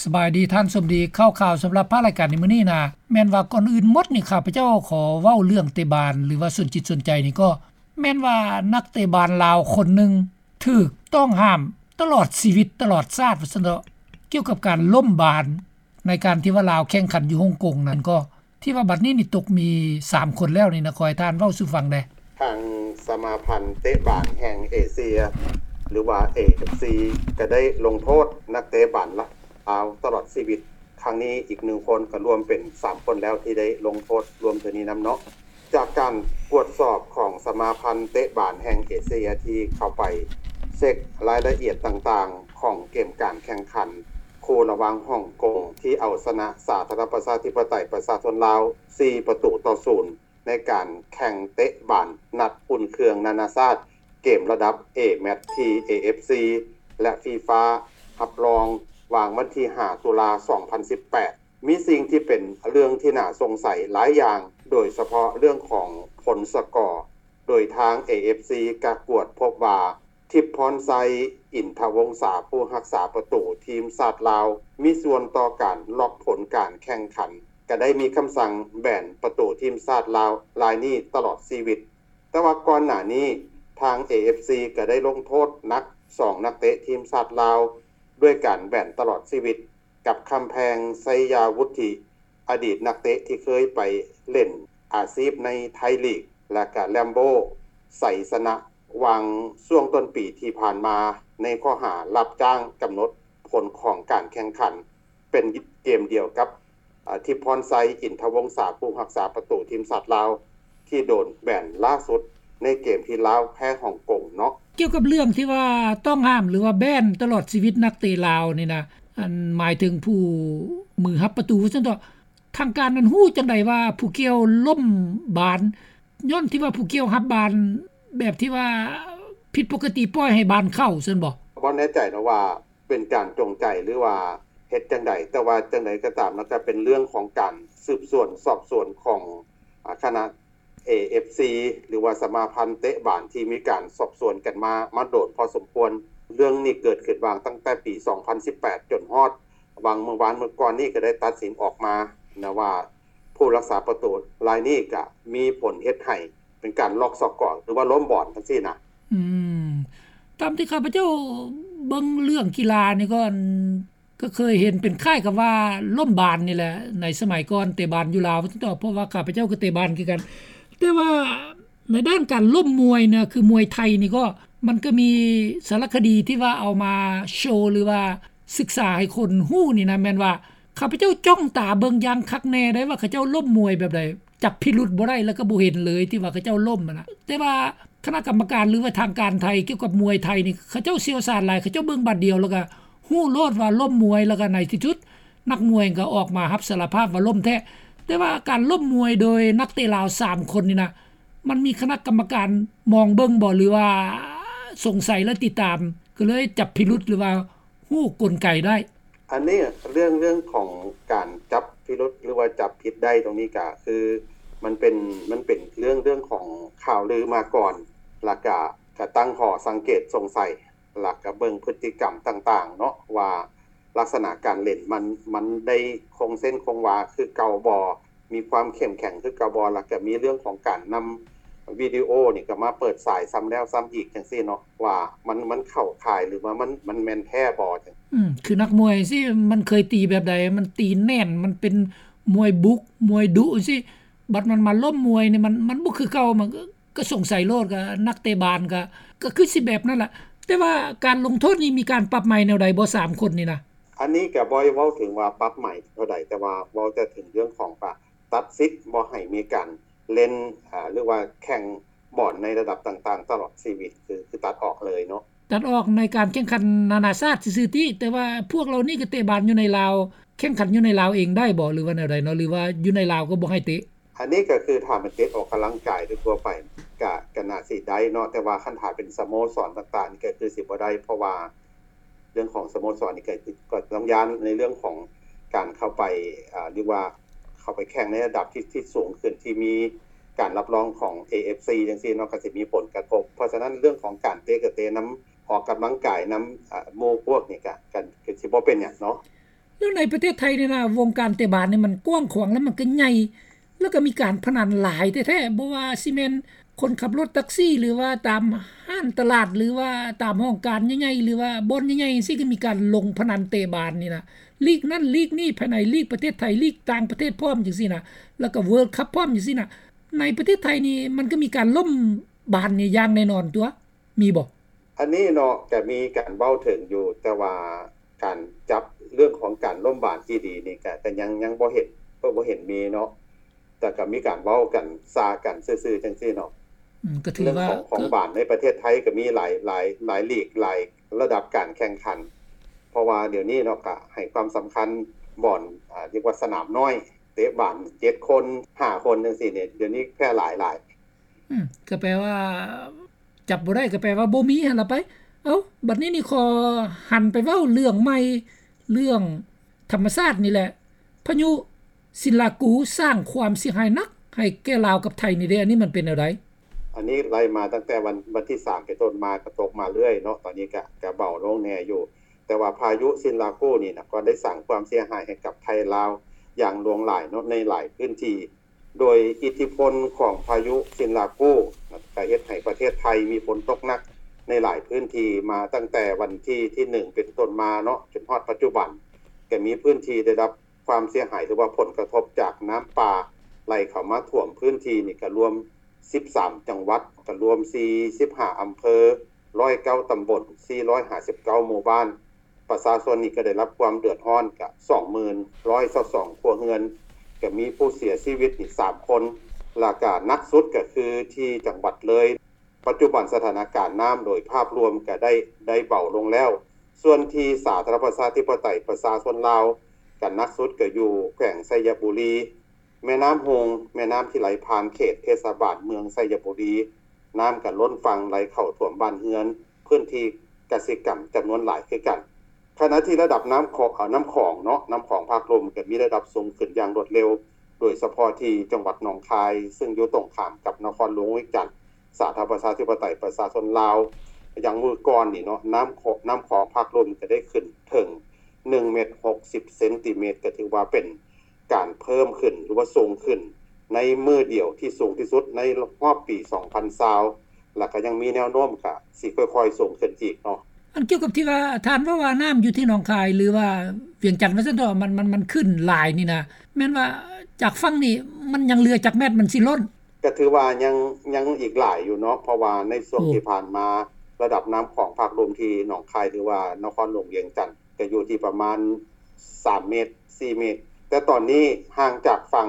ສະບາຍດີທ່ານສົມດີ ຂ່າວໆສຳລັບພາກລາຍການໃນມື້ນີ້ນະ ແມ່ນວ່າກ່ອນອື່ນໝົດນີ້ ຂ້າພະເຈົ້າຂໍເວົ້າເລື່ອງເຕະບານ ຫຼືວ່າສົນຈິດສົນໃຈນີ້ກໍ ແມ່ນວ່ານັກເຕະບານລາວຄົນໜຶ່ງ ຖືກຕ້ອງຫ້າມຕະຫຼອດຊີວິດ ຕະຫຼອດຊາດວ່າຊັ້ນເຖາະ ກ່ຽວກັບການລົ້ມບານ ໃນການທີ່ວ່າລາວແຂ່ງຂັນຢູ່ຮົງກົງນັ້ນກໍ ທີ່ວ່າບັດນີ້ນີ້ຕົກມີສາມຄົນແລ້ວນີ້ນະ ຂໍໃຫ້ທ່ານເວົ້າສູ່ຟັງແດ່. ທາງສະມາພັນເຕະບານແຫ່ງເອເຊຍ ຫຼືວ່າ ເອເອັຟຊີ ກໍໄດ້ລົງໂທດນັກເຕະບານລາວຕະຫຼອດຊີວິດ ຄັ້ງນີ້ອີກໜຶ່ງຄົນ ກໍລວມເປັນສາມຄົນແລ້ວທີ່ໄດ້ລົງໂທດລວມເທື່ອນີ້ນຳເນາະ. ຈາກການກວດສອບຂອງສະມາພັນເຕະບານແຫ່ງເອເຊຍທີ່ເຂົ້າໄປເຊັກລາຍລະອຽດຕ່າງໆຂອງເກມການແຂ່ງຂັນຄູ່ລະຫວ່າງຮົງກົງທີ່ເອົາຊະນະສາທາລະນະລັດປະຊາທິປະໄຕປະຊາຊົນລາວສີ່ປະຕູຕໍ່ສູນ ໃນການແຂ່ງເຕະບານນັດອຸ່ນເຄື່ອງນານາຊາດ ເກມລະດັບ A-MATCH ທີ່ ເອເອັຟຊີ ແລະ FIFA ຮັບຮອງ ຫວ່າງວັນທີຫ້າ ຕຸລາ ສອງພັນສິບແປດ ມີສິ່ງທີ່ເປັນເລື່ອງທີ່ໜ້າສົງໄສຫຼາຍຢ່າງ ໂດຍສະເພາະເລື່ອງຂອງຜົນສະກໍ ໂດຍທາງ ເອເອັຟຊີ ກະກວດພົບວ່າ ທິບພອນໄຊ ອິນທະວົງສາ ຜູ້ຮັກສາປະຕູທີມຊາດລາວ ມີສ່ວນຕໍ່ການລັອກຜົນການແຂ່ງຂັນ ກະໄດ້ມີຄຳສັ່ງແບນປະຕູທີມຊາດລາວລາຍນີ້ຕະຫຼອດຊີວິດ. ແຕ່ວ່າກ່ອນໜ້ານີ້ ທາງ ເອເອັຟຊີ ກະໄດ້ລົງໂທດໜັກສອງນັກເຕະທີມຊາດລາວ ດ້ວຍການແບນຕະຫຼອດຊີວິດ ກັບ ຄຳແພງ ໄຊຍາວຸດທິ ອະດີດນັກເຕະທີ່ເຄີຍໄປຫຼິ້ນອາຊີບໃນໄທລີກ ແລະ ກະ ແລມໂບ ໄຊຊະນະ ຫວ່າງຊ່ວງຕົ້ນປີທີ່ຜ່ານມາ ໃນຂໍ້ຫາຮັບຈ້າງກຳນົດຜົນຂອງການແຂ່ງຂັນ ເປັນເກມດຽວກັບ ອາ ທິບພອນໄຊ ອິນທະວົງສາ ຜູ້ຮັກສາປະຕູທີມຊາດລາວ ທີ່ໂດນແບນລ່າສຸດໃນເກມທີ່ລາວແພ້ຮົງກົງເນາະ. ກ່ຽວກັບເລື່ອງທີ່ວ່າຕ້ອງຫ້າມ ຫຼືວ່າແບນຕະຫຼອດຊີວິດນັກເຕະລາວນີ້ນະ ອັນໝາຍເຖິງຜູ້ມືຮັບປະຕູວ່າຊັ້ນເຖາະ ທາງການນັ້ນຮູ້ຈັ່ງໃດວ່າຜູ້ກ່ຽວລົ້ມບານ ຍ້ອນທີ່ວ່າຜູ້ກ່ຽວຮັບບານແບບທີ່ວ່າຜິດປົກກະຕິ ປ່ອຍໃຫ້ບານເຂົ້າຊັ້ນບໍ? ບໍ່ແນ່ໃຈເນາະວ່າ ເປັນການຈົງໃຈ ຫຼືວ່າເຮັດຈັ່ງໃດ ແຕ່ວ່າຈັ່ງໃດກໍຕາມ ມັນກໍເປັນເລື່ອງຂອງການສືບສວນສອບສວນຂອງ ອາ ຄະນະ ເອເອັຟຊີ ຫຼືວ່າສະມາພັນເຕະບານທີ່ມີການສອບສວນກັນມາ ມາໂດນພໍສົມຄວນ. ເລື່ອງນີ້ເກີດຂຶ້ນຫວ່າງຕັ້ງແຕ່ປີສອງພັນສິບແປດ ຈົນຮອດຫວ່າງມື້ວານມື້ກ່ອນນີ້ ກໍໄດ້ຕັດສິນອອກມານະວ່າ ຜູ້ຮັກສາປະຕູລາຍນີ້ກະມີຜົນເຮັດໃຫ້ເປັນການລັອກສະກໍ ຫຼືວ່າລົ້ມບອນຈັ່ງຊີ້ນະ. ອືມ ຕາມທີ່ຂ້າພະເຈົ້າເບິ່ງເລື່ອງກິລານີ້ກໍ ກໍເຄີຍເຫັນເປັນຄ້າຍກັບວ່າລົ້ມບານນີ້ແຫຼະ ໃນສະໄໝກ່ອນເຕະບານຢູ່ລາວ ເພາະວ່າຂ້າພະເຈົ້າກໍເຕະບານຄືກັນ. ແຕ່ວ່າໃນດ້ານການລົ້ມມວຍນະ ຄືມວຍໄທນີ້ກໍ ມັນກໍມີສາລະຄະດີທີ່ວ່າເອົາມາໂຊ ຫຼືວ່າສຶກສາໃຫ້ຄົນຮູ້ນີ້ນະ ແມ່ນວ່າ ຂ້າພະເຈົ້າຈ້ອງຕາເບິ່ງຢ່າງຄັກແນ່ໄດ໋ວ່າເຂົາເຈົ້າລົ້ມມວຍແບບໃດ ຈັບພິລຸດບໍ່ໄດ້ ແລ້ວກໍບໍ່ເຫັນເລີຍທີ່ວ່າເຂົາເຈົ້າລົ້ມຫັ້ນນະ. ແຕ່ວ່າຄະນະກຳມະການ ຫຼືວ່າທາງການໄທກ່ຽວກັບມວຍໄທນີ້ ເຂົາເຈົ້າຊ່ຽວຊານຫຼາຍ ເຂົາເຈົ້າເບິ່ງບາດດຽວ ແລ້ວກໍຮູ້ໂລດວ່າລົ້ມມວຍ ແລ້ວກໍໃນທີ່ສຸດນັກມວຍກໍອອກມາຮັບສາລະພາບວ່າລົ້ມແທ້. ແຕ່ວ່າການລົ້ມມວຍໂດຍນັກເຕະລາວສາມຄົນນີ້ນະ ມັນມີຄະນະກຳມະການມອງເບິ່ງບໍ່ ຫຼືວ່າສົງໄສ ແລະ ຕິດຕາມ ກໍເລີຍຈັບພິລຸດ ຫຼືວ່າ ຮູ້ກົນໄກໄດ້. ອັນນີ້ເລື່ອງ ເລື່ອງຂອງການຈັບພິລຸດ ຫຼືວ່າຈັບຜິດໄດ້ຕົງນີ້ກະຄື ມັນເປັນ ມັນເປັນເລື່ອງ ເລື່ອງຂອງຂ່າວລືມາກ່ອນ ລະກະ ກະຕັ້ງຂໍ້ສັງເກດສົງໄສ ລະກະເບິ່ງພຶດຕິກຳຕ່າງໆເນາະ ວ່າລັກສະນະການຫຼິ້ນມັນ ມັນໄດ້ຄົງເສັ້ນຄົງວາຄືເກົ່າບໍ່ ມີຄວາມເຂັ້ມແຂງຄືເກົ່າບໍ່ ລະກະມີເລື່ອງຂອງການນຳວິດີໂອນີ້ກະມາເປີດສາຍຊ້ຳແລ້ວຊ້ຳອີກຈັ່ງຊີ້ເນາະ ວ່າມັນ ມັນເຂົ້າຂ່າຍ ຫຼືວ່າມັນ ມັນແມ່ນແທ້ບໍ່ຈັ່ງ. ອືມ ຄືນັກມວຍຈັ່ງຊີ້ ມັນເຄີຍຕີແບບໃດ ມັນຕີແໜ້ນ ມັນເປັນມວຍບຸກ ມວຍດຸຈັ່ງຊີ້ ບັດມັນມາລົ້ມມວຍນີ້ ມັນ ມັນບໍ່ຄືເກົ່າ ມັນ ກໍສົງໄສໂລດ ກໍນັກເຕະບານກໍ ກໍຄືຊິແບບນັ້ນລະ. ແຕ່ວ່າການລົງໂທດນີ້ມີການປັບໃໝແນວໃດບໍ່ ສາມຄົນນີ້ນະ? ອັນນີ້ກໍບໍ່ໄດ້ເວົ້າເຖິງວ່າປັບໃໝເທົ່າໃດ ແຕ່ວ່າເວົ້າແຕ່ເຖິງເລື່ອງຂອງວ່າ ຕັດສິດບໍ່ໃຫ້ມີການຫຼິ້ນ ອາ ຫຼືວ່າແຂ່ງບອນໃນລະດັບຕ່າງໆຕະຫຼອດຊີວິດ ຄື ຄືຕັດອອກເລີຍເນາະ. ຕັດອອກໃນການແຂ່ງຂັນນານາຊາດຊື່ໆຕິ ແຕ່ວ່າພວກເຫຼົ່ານີ້ກໍເຕະບານຢູ່ໃນລາວ ແຂ່ງຂັນຢູ່ໃນລາວເອງໄດ້ບໍ່ ຫຼືວ່າແນວໃດເນາະ ຫຼືວ່າຢູ່ໃນລາວກໍບໍ່ໃຫ້ເຕະ? ອັນນີ້ກໍຄືຖ້າແມ່ນເຕະອອກກຳລັງກາຍໂດຍທົ່ວໄປ ກະ ກະໜ້າຊິໄດ້ເນາະ ແຕ່ວ່າຄັນຖ້າເປັນສະໂມສອນຕ່າງໆນີ້ ກໍຄືຊິບໍ່ໄດ້ ເພາະວ່າເລື່ອງຂອງສະໂມສອນນີ້ ກໍ ກໍຕ້ອງຢ້ານໃນເລື່ອງຂອງການເຂົ້າໄປ ອາ ຫຼືວ່າເຂົ້າໄປແຂ່ງໃນລະດັບທີ່ ທີ່ສູງຂຶ້ນ ທີ່ມີການຮັບຮອງຂອງ ເອເອັຟຊີ ຈັ່ງຊີ້ເນາະ ກໍຊິມີຜົນກະທົບ. ເພາະສະນັ້ນເລື່ອງຂອງການເຕະ ກະເຕະນຳ ອອກກຳລັງກາຍນຳ ອາ ໝູ່ພວກນີ້ ກະ ກະ ກະຊິບໍ່ເປັນຫຍັງເນາະ. ແລ້ວ ໃນປະເທດໄທນີ້ນະ ວົງການເຕະບານນີ້ມັນກວ້າງຂວາງ ແລ້ວມັນກໍໃຫຍ່ ແລ້ວກໍມີການພະນັນຫຼາຍແທ້ໆ ບໍ່ວ່າຊິແມ່ນຄົນຂັບລົດແທັກຊີ ຫຼືວ່າຕາມຮ້ານຕະຫຼາດ ຫຼືວ່າຕາມຫ້ອງການໃຫຍ່ໆ ຫຼືວ່າບ່ອນໃຫຍ່ໆ ຈັ່ງຊີ້ ກໍມີການລົງພະນັນເຕະບານນີ້ນະ ລີກນັ້ນລີກນີ້ ພາຍໃນລີກປະເທດໄທ ລີກຕ່າງປະເທດພ້ອມຈັ່ງຊີ້ນະ ແລ້ວກໍ World Cup ພ້ອມຈັ່ງຊີ້ນະ. ໃນປະເທດໄທນີ້ມັນກໍມີການລົ້ມບານນີ້ຢ່າງແນ່ນອນຕົວະ ມີບໍ່? ອັນນີ້ເນາະ ກະມີການເວົ້າເຖິງຢູ່ ແຕ່ວ່າການຈັບເລື່ອງຂອງການລົ້ມບານອີ່ຫຼີນີ້ ກະ ກະຍັງ ຍັງບໍ່ເຫັນ ບໍ່ ບໍ່ເຫັນມີເນາະ ແຕ່ກະມີການເວົ້າກັນ ຊາກັນຊື່ໆ ຈັ່ງຊີ້ເນາະ. ອືມ ກໍຖືວ່າ ເລື່ອງຂອງ ຂອງບານໃນປະເທດໄທກໍມີຫຼາຍ ຫຼາຍ ຫຼາຍລີກ ຫຼາຍລະດັບການແຂ່ງຂັນ ເພາະວ່າດຽວນີ້ເນາະ ກະໃຫ້ຄວາມສຳຄັນບ່ອນ ອາ ຮຽກວ່າສະໜາມນ້ອຍ ເຕະບານເຈັດຄົນ ຫ້າຄົນ ຈັ່ງຊີ້ນີ້ ດຽວນີ້ແຜ່ຫຼາຍຫຼາຍ. ອືມ ກໍແປວ່າ ຈັບບໍ່ໄດ້ກໍແປວ່າບໍ່ມີຫັ້ນລະໄປ. ເອົ້າ ບັດນີ້ນີ້ຂໍຫັນໄປເວົ້າເລື່ອງໃໝ່ ເລື່ອງທຳມະຊາດນີ້ແຫຼະ. ພາຍຸຊິນລາກູສ້າງຄວາມເສຍຫາຍໜັກໃຫ້ແກ່ລາວກັບໄທນີ້ເດ້ ອັນນີ້ມັນເປັນແນວໃດ? ອັນນີ້ໄລ່ມາຕັ້ງແຕ່ວັນ ວັນທີສາມເປັນຕົ້ນມາ ກໍຕົກມາເລື້ອຍເນາະ, ຕອນນີ້ກະ ກະເບົາລົງແດ່ຢູ່, ແຕ່ວ່າພາຍຸຊິນລາກູນີ້ນະ ກໍໄດ້ສ້າງຄວາມເສຍຫາຍໃຫ້ກັບໄທລາວຢ່າງຫຼວງຫຼາຍເນາະ ໃນຫຼາຍພື້ນທີ່. ໂດຍອິດທິພົນຂອງພາຍຸຊິນລາກູ ກໍເຮັດໃຫ້ປະເທດໄທມີຝົນຕົກໜັກໃນຫຼາຍພື້ນທີ່ມາຕັ້ງແຕ່ວັນທີ ທີໜຶ່ງເປັນຕົ້ນມາເນາະ ຈົນຮອດປັດຈຸບັນ ກໍມີພື້ນທີ່ໄດ້ຮັບຄວາມເສຍຫາຍ ຫຼືວ່າຜົນກະທົບຈາກນ້ຳປ່າໄຫຼເຂົ້າມາຖ້ວມພື້ນທີ່ນີ້ ກໍລວມສິບສາມຈັງຫວັດ ກໍລວມສີ່ສິບຫ້າອຳເພີ ຮ້ອຍເກົ້າຕຳບົນ ສີ່ຮ້ອຍຫ້າສິບເກົ້າໝູ່ບ້ານ. ປະຊາຊົນນີ້ກໍໄດ້ຮັບຄວາມເດືອດຮ້ອນກະສອງໝື່ນຮ້ອຍຊາວສອງຄົວເຮືອນ, ກໍມີຜູ້ເສຍຊີວິດນີ້ສາມຄົນ ແລ້ວກະໜັກສຸດກໍຄືທີ່ຈັງຫວັດເລີຍ. ປັດຈຸບັນສະຖານະການນ້ຳໂດຍພາບລວມກໍໄດ້ ໄດ້ເບົາລົງແລ້ວ. ສ່ວນທີ່ສາທາລະນະລັດປະຊາທິປະໄຕປະຊາຊົນລາວ ກໍໜັກສຸດກໍຢູ່ແຂວງໄຊຍະບູລີ. ແມ່ນ້ຳຮຸ່ງ ແມ່ນ້ຳທີ່ໄຫຼຜ່ານເຂດເທດສະບານເມືອງໄຊຍະບູລີ ນ້ຳກໍລົ້ນຝັ່ງໄຫຼເຂົ້າຖ້ວມບ້ານເຮືອນ ພື້ນທີ່ກະສິກຳຈຳນວນຫຼາຍຄືກັນ. ຂະນະທີ່ລະດັບນ້ຳຂອງ ເອີ ນ້ຳຂອງເນາະ ນ້ຳຂອງພາກລຸ່ມກໍມີລະດັບສູງຂຶ້ນຢ່າງລວດເລັວ ໂດຍສະເພາະທີ່ຈັງຫວັດໜອງຄາຍ ຊຶ່ງຢູ່ຕົງຂ້າມກັບນະຄອນຫຼວງວຽງຈັນ ສາທາລະນະລັດປະຊາທິປະໄຕປະຊາຊົນລາວ ຢ່າງມື້ກ່ອນນີ້ເນາະ ນ້ຳຂອງ ນ້ຳຂອງພາກລຸ່ມກໍໄດ້ຂຶ້ນເຖິງໜຶ່ງເມັດຫົກສິບເຊັນຕີເມັດ ກໍຖືວ່າເປັນ ການເພີ່ມຂຶ້ນ ຫຼືວ່າສູງຂຶ້ນໃນມື້ດຽວທີ່ສູງທີ່ສຸດໃນຮອບປີສອງພັນຊາວ ແລ້ວກໍຍັງມີແນວໂນ້ມກະຊິຄ່ອຍໆສູງຂຶ້ນອີກເນາະ. ອັນກ່ຽວກັບທີ່ວ່າທ່ານເວົ້າວ່ານ້ຳຢູ່ທີ່ໜອງຄາຍ ຫຼືວ່າວຽງຈັນວ່າຊັ້ນເຖາະ ມັນ ມັນ ມັນຂຶ້ນຫຼາຍນີ້ນະ ແມ່ນວ່າຈາກຝັ່ງນີ້ມັນຍັງເຫຼືອຈັກແມັດມັນຊິລົ້ນ? ກໍຖືວ່າຍັງ ຍັງອີກຫຼາຍຢູ່ເນາະ ເພາະວ່າໃນຊ່ວງ ໂອ້ ທີ່ຜ່ານມາ ລະດັບນ້ຳຂອງພາກລຸ່ມທີ່ໜອງຄາຍ ຫຼືວ່ານະຄອນຫຼວງວຽງຈັນ ກໍຢູ່ທີ່ປະມານສາມເມັດ ສີ່ເມັດ ແຕ່ຕອນນີ້ຫ່າງຈາກຝັ່ງ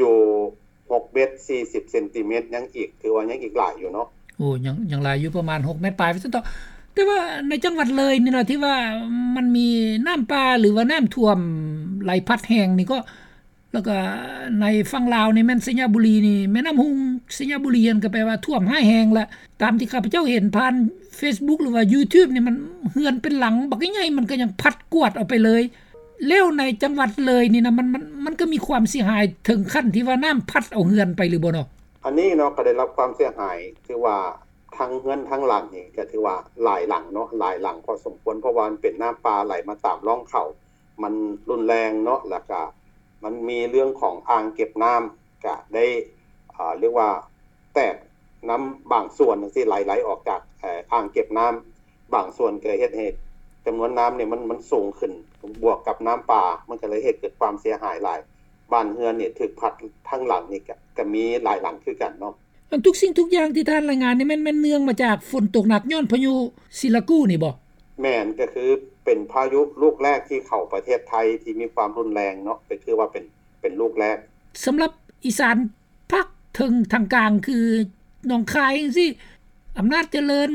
ຢູ່ຫົກເມັດສີ່ສິບເຊັນຕີເມັດ ຍັງອີກ ຖືວ່າຍັງອີກຫຼາຍຢູ່ເນາະ. ໂອ້ ຍັງ ຍັງຫຼາຍຢູ່ ປະມານຫົກເມັດປາຍວ່າຊັ້ນເຖາະ. ແຕ່ວ່າໃນຈັງຫວັດເລີຍນີ້ນະ ທີ່ວ່າມັນມີນ້ຳປ່າ ຫຼືວ່ານ້ຳຖ້ວມໄຫຼພັດແຮງນີ້ ກໍ ແລ້ວກໍໃນຝັ່ງລາວນີ້ແມ່ນໄຊຍະບູລີນີ້ ແມ່ນ້ຳຮຸ່ງ ໄຊຍະບູລີຫັ້ນ ກໍແປວ່າຖ້ວມຮ້າຍແຮງລະ ຕາມທີ່ຂ້າພະເຈົ້າເຫັນຜ່ານເຟສບຸກ ຫຼືວ່າຢູທູບນີ້ ມັນເຮືອນເປັນຫຼັງບັກໃຫຍ່ໆ ມັນກໍຍັງພັດກວາດເອົາໄປເລີຍ. ແລ້ວໃນຈັງຫວັດເລີຍນີ້ນະ ມັນ ມັນ ມັນກໍມີຄວາມເສຍຫາຍເຖິງຂັ້ນທີ່ວ່ານ້ຳພັດເອົາເຮືອນໄປຫຼືບໍ່ເນາະ? ອັນນີ້ເນາະ ກໍໄດ້ຮັບຄວາມເສຍຫາຍ ຖືວ່າທັງເຮືອນທັງຫຼັງນີ້ ກໍຖືວ່າຫຼາຍຫຼັງເນາະ ຫຼາຍຫຼັງພໍສົມຄວນ ເພາະວ່າມັນເປັນນ້ຳປ່າໄຫຼມາຕາມຮ່ອງເຂົາ ມັນຮຸນແຮງເນາະ ແລ້ວກະມັນມີເລື່ອງຂອງອ່າງເກັບນ້ຳ ກະໄດ້ ເອີ ຮຽກວ່າແຕກນ້ຳບາງສ່ວນຈັ່ງຊີ້ ໄຫຼ ໄຫຼອອກຈາກ ເອີ ອ່າງເກັບນ້ຳບາງສ່ວນ ກະເຮັດໃຫ້ຈຳນວນນ້ຳນີ້ມັນ ມັນສູງຂຶ້ນ ບວກກັບນ້ຳປ່າ ມັນກະເລີຍເຮັດເກີດຄວາມເສຍຫາຍຫຼາຍ ບ້ານເຮືອນນີ້ຖືກພັດທັງຫຼັງນີ້ ກະ ກະມີຫຼາຍຫຼັງຄືກັນເນາະ. ອັນທຸກສິ່ງທຸກຢ່າງທີ່ທ່ານລາຍງານນີ້ແມ່ນ ແມ່ນເນື່ອງມາຈາກຝົນຕົກໜັກຍ້ອນພາຍຸຊິລາກູນີ້ບໍ່? ແມ່ນ ກໍຄືເປັນພາຍຸລູກແລກທີ່ເຂົ້າປະເທດໄທທີ່ມີຄວາມຮຸນແຮງເນາະ ກໍຖືວ່າເປັນ ເປັນລູກແລກ. ສຳລັບອີສານພາກເທິງທາງກາງ ຄືໜອງຄາຍຈັ່ງຊີ້ ອຳນາດຈະເລີນ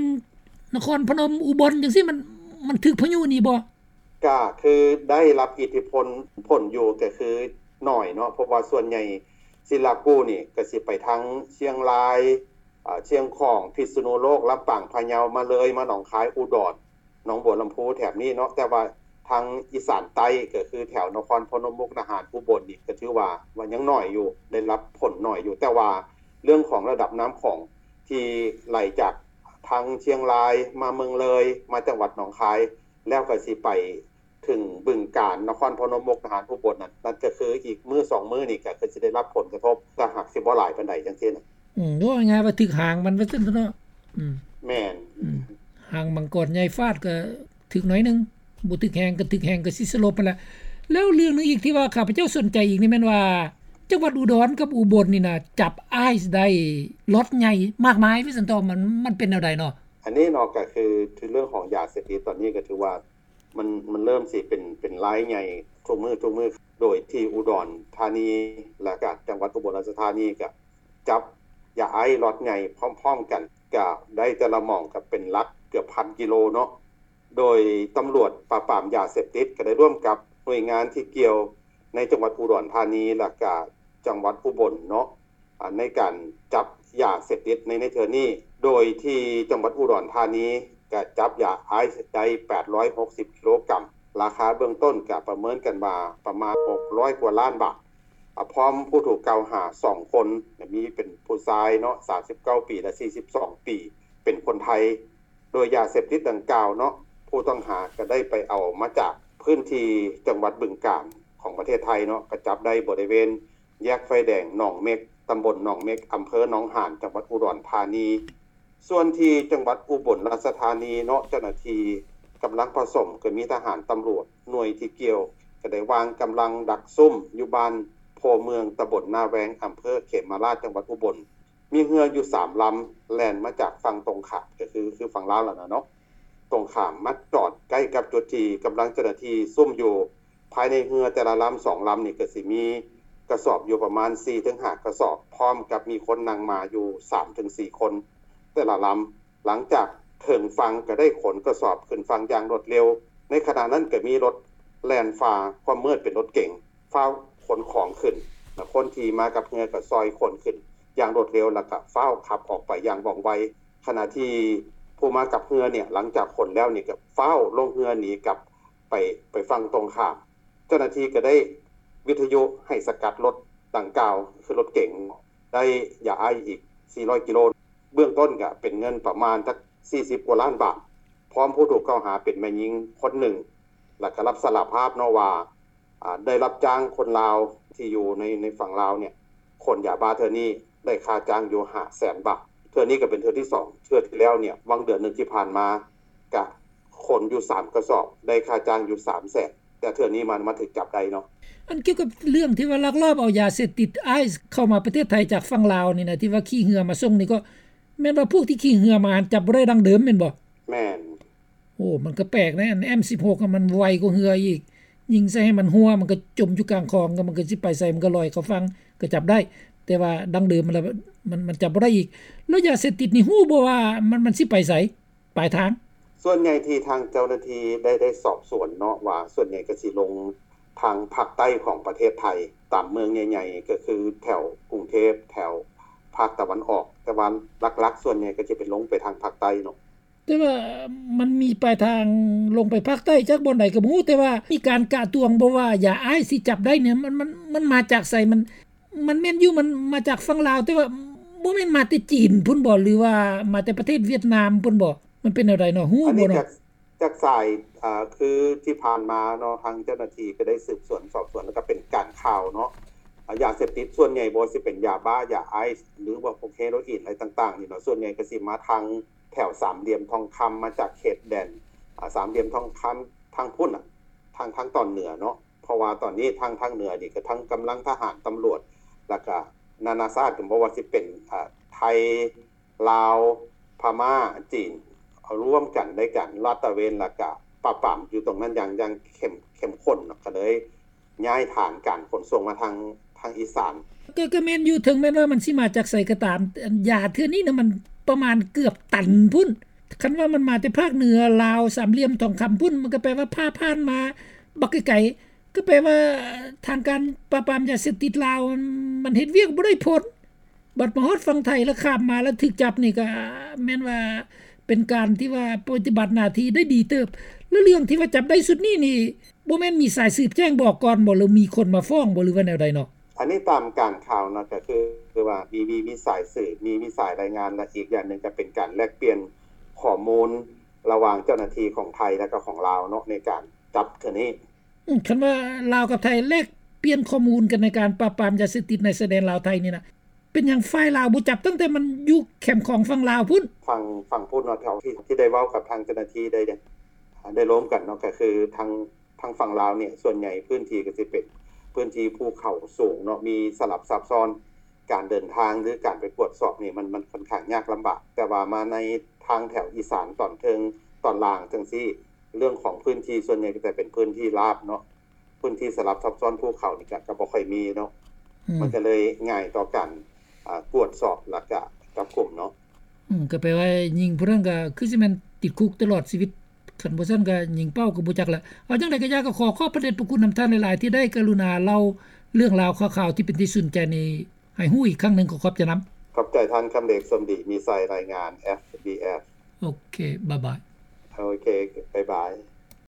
ນະຄອນພະນົມ ອຸບົນຈັ່ງຊີ້ ມັນ ມັນຖືກພາຍຸນີ້ບໍ່? ກະຄືໄດ້ຮັບອິດທິພົນ ຜົນຢູ່ ກະຄືໜ້ອຍເນາະ ເພາະວ່າສ່ວນໃຫຍ່ຊິລາກູນີ້ກະຊິໄປທາງຊຽງລາຍ ອາ ຊຽງຂອງ ພິດສະນຸໂລກ ລຳປາງ ພະເຍົາ ມາເລີຍ ມາໜອງຄາຍ ອຸດອນ ໜອງບົວລຳພູ ແຖບນີ້ເນາະ ແຕ່ວ່າທາງອີສານໃຕ້ ກະຄືແຖວນະຄອນພະນົມ ມຸກດາຫານ ອຸບົນນີ້ ກະຖືວ່າ ວ່າຍັງໜ້ອຍຢູ່ ໄດ້ຮັບຜົນໜ້ອຍຢູ່ ແຕ່ວ່າເລື່ອງຂອງລະດັບນ້ຳຂອງທີ່ໄຫຼຈາກທາງຊຽງລາຍ ມາເມືອງເລີຍ ມາຈັງຫວັດໜອງຄາຍ ແລ້ວກໍຊິໄປ ເຖິງບຶງການ, ນະຄອນພະນົມ, ມຸກດາຫານ, ອຸບົນນັ້ນ, ນັ້ນກໍຄືອີກມື້ສອງມື້ນີ້ກໍຄືຊິໄດ້ຮັບຜົນກະທົບ, ຖ້າຫາກຊິບໍ່ຫຼາຍປານໃດຈັ່ງຊີ້ນະ. ອືມ ເວົ້າງ່າຍໆວ່າຖືກຫາງມັນວ່າຊັ້ນເຖາະເນາະ. ອືມ ແມ່ນ. ອືມ ຫາງມັງກອນໃຫຍ່ຟາດກໍຖືກໜ້ອຍໜຶ່ງ, ບໍ່ຖືກແຮງກໍຖືກແຮງກໍຊິສະຫຼົບຫັ້ນລະ. ແລ້ວເລື່ອງໜຶ່ງອີກທີ່ວ່າຂ້າພະເຈົ້າສົນໃຈອີກນີ້ແມ່ນວ່າ ຈັງຫວັດອຸດອນກັບອຸບົນນີ້ນະ ຈັບໄອສ໌ໄດ້ລັອດໃຫຍ່ມາກມາຍວ່າຊັ້ນເຖາະ, ມັນ ມັນເປັນແນວໃດເນາະ? ອັນນີ້ເນາະ ກໍຄືເລື່ອງຂອງຢາເສບຕິດຕອນນີ້ກໍຖືວ່າ ມັນ ມັນເລີ່ມຊິເປັນ ເປັນລາຍໃຫຍ່ທຸກມື້ ທຸກມື້ ໂດຍທີ່ອຸດອນທານີ ແລະກະຈັງຫວັດອຸບົນລາຊະທານີ ກະຈັບຢາໄອສ໌ລັອດໃຫຍ່ພ້ອມໆກັນ ກະໄດ້ແຕ່ລະໝ່ອງກະເປັນຫຼັກເກືອບພັນກິໂລເນາະ. ໂດຍຕຳຫຼວດປາບປາມຢາເສບຕິດ ກະໄດ້ຮ່ວມກັບໜ່ວຍງານທີ່ກ່ຽວໃນຈັງຫວັດອຸດອນທານີ ແລະກະຈັງຫວັດອຸບົນເນາະ ອາ ໃນການຈັບຢາເສບຕິດໃນ ໃນເທື່ອນີ້, ໂດຍທີ່ຈັງຫວັດອຸດອນທານີກະຈັບຢາໄອສ໌ໄດ້ແປດຮ້ອຍຫົກສິບກິໂລກຣາມ, ລາຄາເບື້ອງຕົ້ນກະປະເມີນກັນວ່າປະມານຫົກຮ້ອຍກວ່າລ້ານບາດ, ອາ ພ້ອມຜູ້ຖືກກ່າວຫາສອງຄົນ, ມີເປັນຜູ້ຊາຍເນາະ ສາມສິບເກົ້າປີ ແລະ ສີ່ສິບສອງປີ ເປັນຄົນໄທ. ໂດຍຢາເສບຕິດດັ່ງກ່າວເນາະ ຜູ້ຕ້ອງຫາກະໄດ້ໄປເອົາມາຈາກພື້ນທີ່ຈັງຫວັດບຶງການຂອງປະເທດໄທເນາະ, ກະຈັບໄດ້ບໍລິເວນ ແຍກໄຟແດງໜອງເມັກ, ຕຳບົນໜອງເມັກ, ອຳເພີໜອງຫານ, ຈັງຫວັດອຸດອນທານີ. ສ່ວນທີ່ຈັງຫວັດອຸບົນລາຊະທານີເນາະ, ເຈົ້າໜ້າທີ່ກຳລັງຜະສົມ ກໍມີທະຫານ, ຕຳຫຼວດ, ໜ່ວຍທີ່ກ່ຽວ ກໍໄດ້ວາງກຳລັງດັກຊຸ້ມຢູ່ບ້ານໂພເມືອງ, ຕຳບົນນາແວງ, ອຳເພີເຂມມະລາດ, ຈັງຫວັດອຸບົນ. ມີເຮືອຢູ່ສາມລຳ ແລ່ນມາຈາກຝັ່ງຕົງຂ້າມ, ກໍຄື ຄືຝັ່ງລາວຫັ້ນນະເນາະ, ຕົງຂ້າມມາຈອດໃກ້ກັບຈຸດທີ່ກຳລັງເຈົ້າໜ້າທີ່ຊຸ້ມຢູ່. ພາຍໃນເຮືອແຕ່ລະລຳສອງລຳນີ້ ກໍຊິມີກະສອບຢູ່ປະມານສີ່ເຖິງຫ້າກະສອບ, ພ້ອມກັບມີຄົນນັ່ງມາຢູ່ສາມເຖິງສີ່ຄົນແຕ່ລະລຳ. ຫຼັງຈາກເຖິງຝັ່ງກໍໄດ້ຂົນກະສອບຂຶ້ນຝັ່ງຢ່າງລວດເລັວ. ໃນຂະນະນັ້ນກໍມີລົດແລ່ນຝ່າຄວາມມືດເປັນລົດເກັງ ຟ້າວຂົນຂອງຂຶ້ນ, ແລະ ຄົນທີ່ມາກັບເຮືອກໍຊ່ອຍຂົນຂຶ້ນຢ່າງລວດເລັວ ແລ້ວກໍຟ້າວຂັບອອກໄປຢ່າງວ່ອງໄວ. ຂະນະທີ່ຜູ້ມາກັບເຮືອນີ້ ຫຼັງຈາກຂົນແລ້ວນີ້ ກໍຟ້າວລົງເຮືອໜີກັບໄປ ໄປຝັ່ງຕົງຂ້າມ. ເຈົ້າໜ້າທີ່ກໍໄດ້ວິທະຍຸໃຫ້ສະກັດລົດດັ່ງກ່າວ ຄືລົດເກັງ, ໄດ້ຢາໄອສ໌ອີກສີ່ຮ້ອຍກິໂລ. ເບື້ອງຕົ້ນກໍເປັນເງິນປະມານຈັກສີ່ສິບກວ່າລ້ານບາດ, ພ້ອມຜູ້ຖືກກ່າວຫາເປັນແມ່ຍິງຄົນໜຶ່ງ ແລ້ວກໍຮັບສາລະພາບເນາະວ່າ ອາ ໄດ້ຮັບຈ້າງຄົນລາວທີ່ຢູ່ໃນ ໃນຝັ່ງລາວເນຍ ຂົນຢາບ້າເທື່ອນີ້ໄດ້ຄ່າຈ້າງຢູ່ຫ້າແສນບາດ. ເທື່ອນີ້ກໍເປັນເທື່ອທີສອງ, ເທື່ອທີ່ແລ້ວເນຍ ຫວ່າງເດືອນໜຶ່ງທີ່ຜ່ານມາ ກະຂົນຢູ່ສາມກະສອບ ໄດ້ຄ່າຈ້າງຢູ່ສາມແສນ, ແຕ່ເທື່ອນີ້ມັນ ມັນຖືກຈັບໄດ້ເນາະ. ອັນກ່ຽວກັບເລື່ອງທີ່ວ່າລັກລອບເອົາຢາເສບຕິດໄອສ໌ເຂົ້າມາປະເທດໄທຈາກຝັ່ງລາວນີ້ນະ ທີ່ວ່າຂີ່ເຮືອມາສົ່ງນີ້ ກໍແມ່ນວ່າພວກທີ່ຂີ່ເຮືອມາຫັ້ນ ຈັບບໍ່ໄດ້ດັ່ງເດີມແມ່ນບໍ່? ແມ່ນ. ໂອ້ ມັນກໍແປກເດ້ ອັນເອັມສິບຫົກມັນໄວກວ່າເຮືອອີກ, ຍິງໃສ່ໃຫ້ມັນຮົ່ວ ມັນກໍຈົມຢູ່ກາງຄອງ, ມັນກໍຊິໄປໃສ ມັນກໍລອຍເຂົ້າຝັ່ງ ກໍຈັບໄດ້, ແຕ່ວ່າດັ່ງເດີມມັນລະ ມັນ ມັນຈັບບໍ່ໄດ້ອີກ. ແລ້ວຢາເສບຕິດນີ້ຮູ້ບໍ່ວ່າມັນ ມັນຊິໄປໃສ ປາຍທາງ? ສ່ວນໃຫຍ່ທີ່ທາງເຈົ້າໜ້າທີ່ໄດ້ ໄດ້ສອບສວນເນາະ ວ່າສ່ວນໃຫຍ່ກໍຊິລົງທາງພາກໃຕ້ຂອງປະເທດໄທ ຕາມເມືອງໃຫຍ່ໆ ກໍຄືແຖວກຸງເທບ ແຖວພາກຕາເວັນອອກ, ແຕ່ວ່າຫຼັກໆ ສ່ວນໃຫຍ່ກໍຈະເປັນລົງໄປທາງພາກໃຕ້ເນາະ. ແຕ່ວ່າມັນມີປາຍທາງລົງໄປພາກໃຕ້ຈັກບ່ອນໃດກໍບໍ່ຮູ້, ແຕ່ວ່າມີການກະຕວງບໍ່ວ່າຢາໄອສ໌ທີ່ຈັບໄດ້ນີ້ ມັນ ມັນ ມັນມາຈາກໃສ? ມັນ ມັນແມ່ນຢູ່ ມັນມາຈາກຝັ່ງລາວ, ແຕ່ວ່າບໍ່ແມ່ນມາແຕ່ຈີນພຸ້ນບໍ່ ຫຼືວ່າມາແຕ່ປະເທດຫວຽດນາມພຸ້ນບໍ່? ມັນເປັນແນວໃດເນາະ? ຮູ້ບໍ່ເນາະ? ຈາກສາຍ ອາ ຄືທີ່ຜ່ານມາເນາະ ທາງເຈົ້າໜ້າທີ່ກໍໄດ້ສືບສວນສອບສວນ ແລ້ວກໍເປັນການຂ່າວເນາະ ອາ ຢາເສບຕິດສ່ວນໃຫຍ່ ບໍ່ວ່າຊິເປັນຢາບ້າ, ຢາໄອສ໌ ຫຼືວ່າພວກເຮໂຣອີນ ອະໄລຕ່າງໆນີ້ເນາະ ສ່ວນໃຫຍ່ກໍຊິມາທາງແຖວສາມຫຼ່ຽມທອງຄຳ ມາຈາກເຂດແດນ ອາ ສາມຫຼ່ຽມທອງຄຳ ທາງພຸ້ນນະ ທາງ ທາງຕອນເໜືອເນາະ. ເພາະວ່າຕອນນີ້ທາງ ທາງເໜືອນີ້ກໍທັງກຳລັງທະຫານ, ຕຳຫຼວດ ແລ້ວກໍນານາຊາດ ກໍບໍ່ວ່າຊິເປັນ ອາ ໄທ ລາວ, ພະມ້າ, ຈີນ ເອົາລວມກັນໃນການລາດຕະເວນ ແລ້ວກະປາບປາມຢູ່ຕົງນັ້ນຢ່າງ ຢ່າງເຂັ້ມ ເຂັ້ມຂຸ້ນເນາະ, ກໍເລີຍຍ້າຍຖານການຂົນສົ່ງມາທາງ ທາງອີສານ. ກໍ ກໍແມ່ນຢູ່, ເຖິງແມ່ນວ່າມັນຊິມາຈາກໃສກໍຕາມ, ອັນຢາເທື່ອນີ້ນະ ມັນປະມານເກືອບຕັນພຸ້ນ. ຄັນວ່າມັນມາແຕ່ພາກເໜືອລາວ, ສາມຫຼ່ຽມທອງຄຳພຸ້ນ, ມັນກໍແປວ່າຜ່າຜ່ານມາບັກໄກໆ. ກໍແປວ່າທາງການປາບປາມຢາເສບຕິດລາວ ມັນ ມັນເຮັດວຽກບໍ່ໄດ້ຜົນ. ບັດມາຮອດຝັ່ງໄທແລ້ວ ຂ້າມມາແລ້ວຖືກຈັບນີ້ ກໍແມ່ນວ່າເປັນການທີ່ວ່າປະຕິບັດໜ້າທີ່ໄດ້ດີເຕີບ. ແລ້ວເລື່ອງທີ່ວ່າຈັບໄດ້ຊຸດນີ້ນີ້ ບໍ່ແມ່ນມີສາຍສືບແຈ້ງບອກກ່ອນບໍ່ ຫຼືມີຄົນມາຟ້ອງບໍ່ ຫຼືວ່າແນວໃດເນາະ? ອັນນີ້ຕາມການຂ່າວເນາະ ກໍຄື ຄືວ່າມີ ມີ ມີສາຍສືບ ມີ ມີສາຍລາຍງານ ແລະ ອີກຢ່າງໜຶ່ງກໍເປັນການແລກປ່ຽນຂໍ້ມູນລະຫວ່າງເຈົ້າໜ້າທີ່ຂອງໄທ ແລະ ກໍຂອງລາວເນາະ ໃນການໄປ ຈັບເທື່ອນີ້. ອືມ ຄັນວ່າລາວກັບໄທແລກປ່ຽນຂໍ້ມູນກັນໃນການປາບປາມຢາເສບຕິດໃນຊາຍແດນລາວໄທນີ້ນະ ເປັນຫຍັງຝ່າຍລາວບໍ່ຈັບຕັ້ງແຕ່ມັນຢູ່ແຄມຂອງຝັ່ງລາວພຸ້ນ? ຝັ່ງ ຝັ່ງພຸ້ນເນາະ ເທົ່າທີ່ ທີ່ໄດ້ເວົ້າກັບທາງເຈົ້າໜ້າທີ່ໄດ້ ໄດ້ລົມກັນເນາະ ກໍຄືທາງ ທາງຝັ່ງລາວນີ້ ສ່ວນໃຫຍ່ພື້ນທີ່ກໍຊິເປັນພື້ນທີ່ພູເຂົາສູງເນາະ ມີສະຫຼັບຊັບຊ້ອນ ການເດີນທາງ ຫຼື ການໄປກວດສອບນີ້ ມັນ ມັນຂ້ອນຂ້າງຍາກລຳບາກ. ແຕ່ວ່າມາໃນທາງແຖວອີສານຕອນເທິງ ຕອນລ່າງຈັ່ງຊີ້ ເລື່ອງຂອງພື້ນທີ່ສ່ວນໃຫຍ່ກໍຈະເປັນພື້ນທີ່ລາບເນາະ ພື້ນທີ່ສະຫຼັບຊັບຊ້ອນພູເຂົານີ້ກໍ ກໍບໍ່ຄ່ອຍມີເນາະ ອືມ ມັນກໍເລີຍງ່າຍຕໍ່ການ ອາ ກວດສອບ ແລ້ວກໍຈັບກຸມເນາະ. ອືມ ກໍແປວ່າຍິງຜູ້ນັ້ນກໍຄືຊິແມ່ນຕິດຄຸກຕະຫຼອດຊີວິດ ຄັນບໍ່ຊັ້ນກໍຍິງເປົ້າກໍບໍ່ຈັກແຫຼະ. ເອົາຈັ່ງໃດກໍຢ່າ ກໍຂໍຂອບພະເດດພະຄຸນນຳທ່ານຫຼາຍໆ ທີ່ໄດ້ກະລຸນາເລົ່າເລື່ອງລາວຂ່າວໆ ທີ່ເປັນທີ່ສົນໃຈນີ້ໃຫ້ຮູ້ອີກຄັ້ງໜຶ່ງ. ຂໍຂອບໃຈນຳ. ຂອບໃຈທ່ານ ຄຳເດດ ສົມດີມີໄຊ ລາຍງານ ເອັຟບີເອັຟ. ໂອເຄ ບາຍບາຍ. ໂອເຄ ບາຍບາຍ.